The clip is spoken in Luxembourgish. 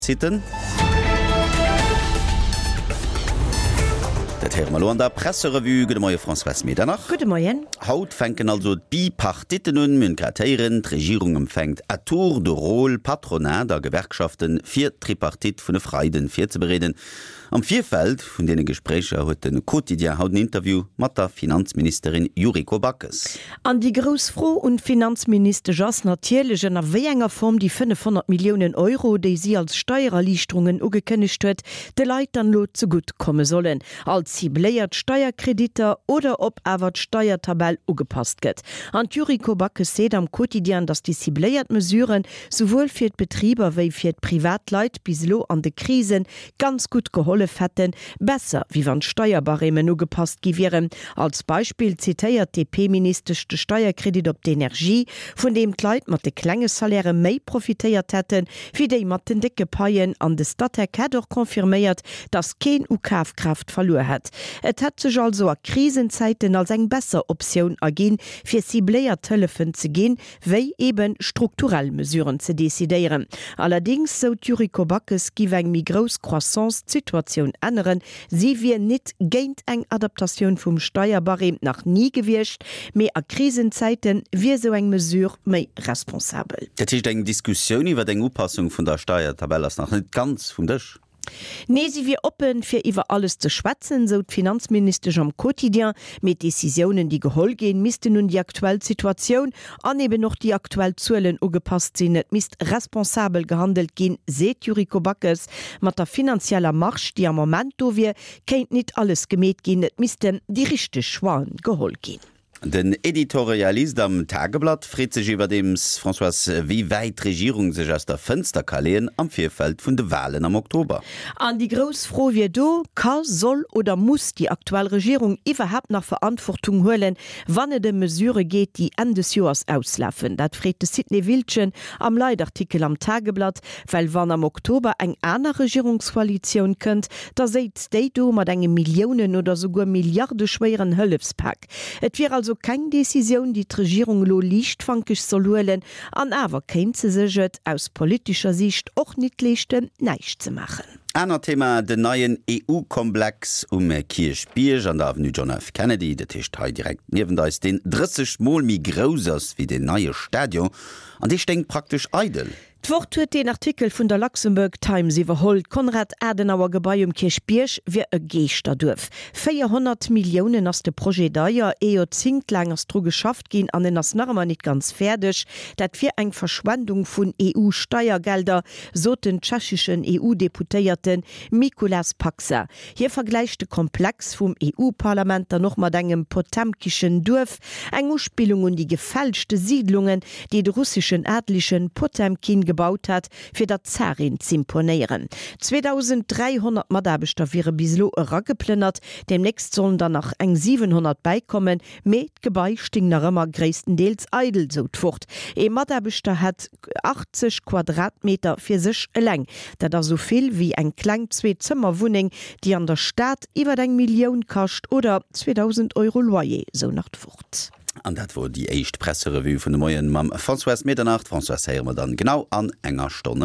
Zitten. Dat héiere mer elo an der Presserevue. Gudde Moie Françoise Medernach. Gudde Moien. Haut fänken also d'Bipartitten un. Mir hunn grad héieren, d'Regierung empfänkt à tour de rôle Patronat a Gewerkschaften, fir d'Tripartite vun e Freiden virzebereeden. Am Virfeld vun deene Gespréicher huet de Quotidien haut en Interview mat der Finanzministerin Yuriko Backes. An déi grouss Fro un d'Finanzministesch ass natierlech, ënner wéi enger Form déi 500 Milliounen Euro, déi si als Steiererliichterungen ugekënnegt huet, de Leit dann elo zegutt komme sollen. Als cibléiert Steierkreditter oder ob awer d'Steiertabell ugepasst gëtt. An d'Yuriko Backes seet am Quotidien, datt déi cibléiert Mesuren souwuel fir d'Betriber wéi fir d'Privatleit bis elo an de Krisen ganz gutt gehollef hätten, besser wéi wann d'Steierbarèmen ugepasst gi wieren. Als Beispill zitéiert d'DP-Ministesch de Steierkredit op d'Energie, vun deem d'Leit mat de klenge Salairë méi profitéiert hätten, wéi déi mat den décke Paien. An de Statec hätt och confirméiert, datt keen u Kafkraaft verluer hätt. Et hätt sech also a Krisenzäiten als eng besser Optioun erginn, fir cibléiert Hëllefen ze ginn, wéi eben strukturell Mesuren ze decidéieren. Allerdings, sou d'Yuriko Backes, giff eng méi grouss Croissance d'Situatioun änneren. Si wier nit géint eng Adaptatioun vum Steierbarème, nach ni gewiescht, mee a Krisenzäite wier sou eng Mesure méi responsabel. Dat heescht, eng Diskussioun iwwer eng Upassung vun der Steiertabell ass nach net ganz vum Dësch? Nee, si wier oppen, fir iwwer alles ze schwätzen, sou d'Finanzministesch am Quotidien. Mee d'Decisiounen, déi geholl ginn, missten un déi aktuell Situatioun an eben och déi aktuell Zuelen ugepasst sinn. Et misst responsabel gehandelt ginn, seet d'Yuriko Backes. Mat der finanzieller Marge, déi am Moment do wier, kéint nit alles gemeet ginn. Et missten déi richteg Choixen geholl ginn. Den Editorialist am Tageblatt freet sech iwwerdeems, Françoise, wéi wäit d'Regierung sech aus der Fënster ka leeën am Virfeld vun de Walen am Oktober. An déi grouss Fro wier do, Ka, soll oder muss déi aktuell Regierung iwwerhaapt nach Verantwortung huelen, wann et ëm Mesurë geet, déi Enn des Joers auslafen? Dat freet de Sidney Wildgen am Leitartikel am Tageblatt. Well wann am Oktober eng aner Regierungskoalitioun kënnt, da séiz déi do mat engem Milliounen oder souguer milliardeschwéieren Hëllefspak. Et wier also keng Decisioun, déi d'Regierung elo liichtfankeg soll huelen, an awer kéint se sech et aus politescher Siicht och nit leeschten, näischt ze maachen. Anert Thema, Den neien EU-Komplex um Kierchbierg an der Avenue John F. Kennedy, dat heescht hei direkt niewent eis, deen 30 Mol méi grouss ass wéi deen neie Stadion, an dee stéing praktesch eidel. D'Wort huet deen Artikel vun der Luxembourg Times iwwerholl. D'Konrad-Adenauer-Gebai um Kierchbierg wier e Geeschterduerf. 400 Milliounen ass de Projet deier, ee Joerzéngt laang ass dru geschafft ginn an en ass nach ëmmer nit ganz fäerdeg. Dat wier eng Verschwendung vun EU-Steiergelder, sot den tschecheschen EU-Deputéierte Mikulas Paksa. Hie vergläicht de Komplex vum EU-Parlament dann och mat engem potemkischen Duerf, eng Uspillung un déi gefälschte Siidlungen, déi de russeschen Adligen Potemkin gebaut hat, fir der Zarin z'imponéieren. 2.300 Mataarbechter wiere bis elo erageplënnert, deemnächst sollen der nach eng 700 bäikommen, mee d'Gebai sting nach ëmmer gréisstendeels eidel, sou d'Wort. Ee Mataarbechter hätt 80 Quadratmeter fir sech eleng. Dat ass esou vill wéi eng kleng Zweezëmmerwunneng, déi an der Stad iwwer eng Millioun kascht oder 2.000 Euro Loyer, sou nach d'Wort. An dat wor déi éischt Presserevue vun de Moien mam Françoise Medernach. D'Françoise héiere mer dann genau an enger Stonn erëm.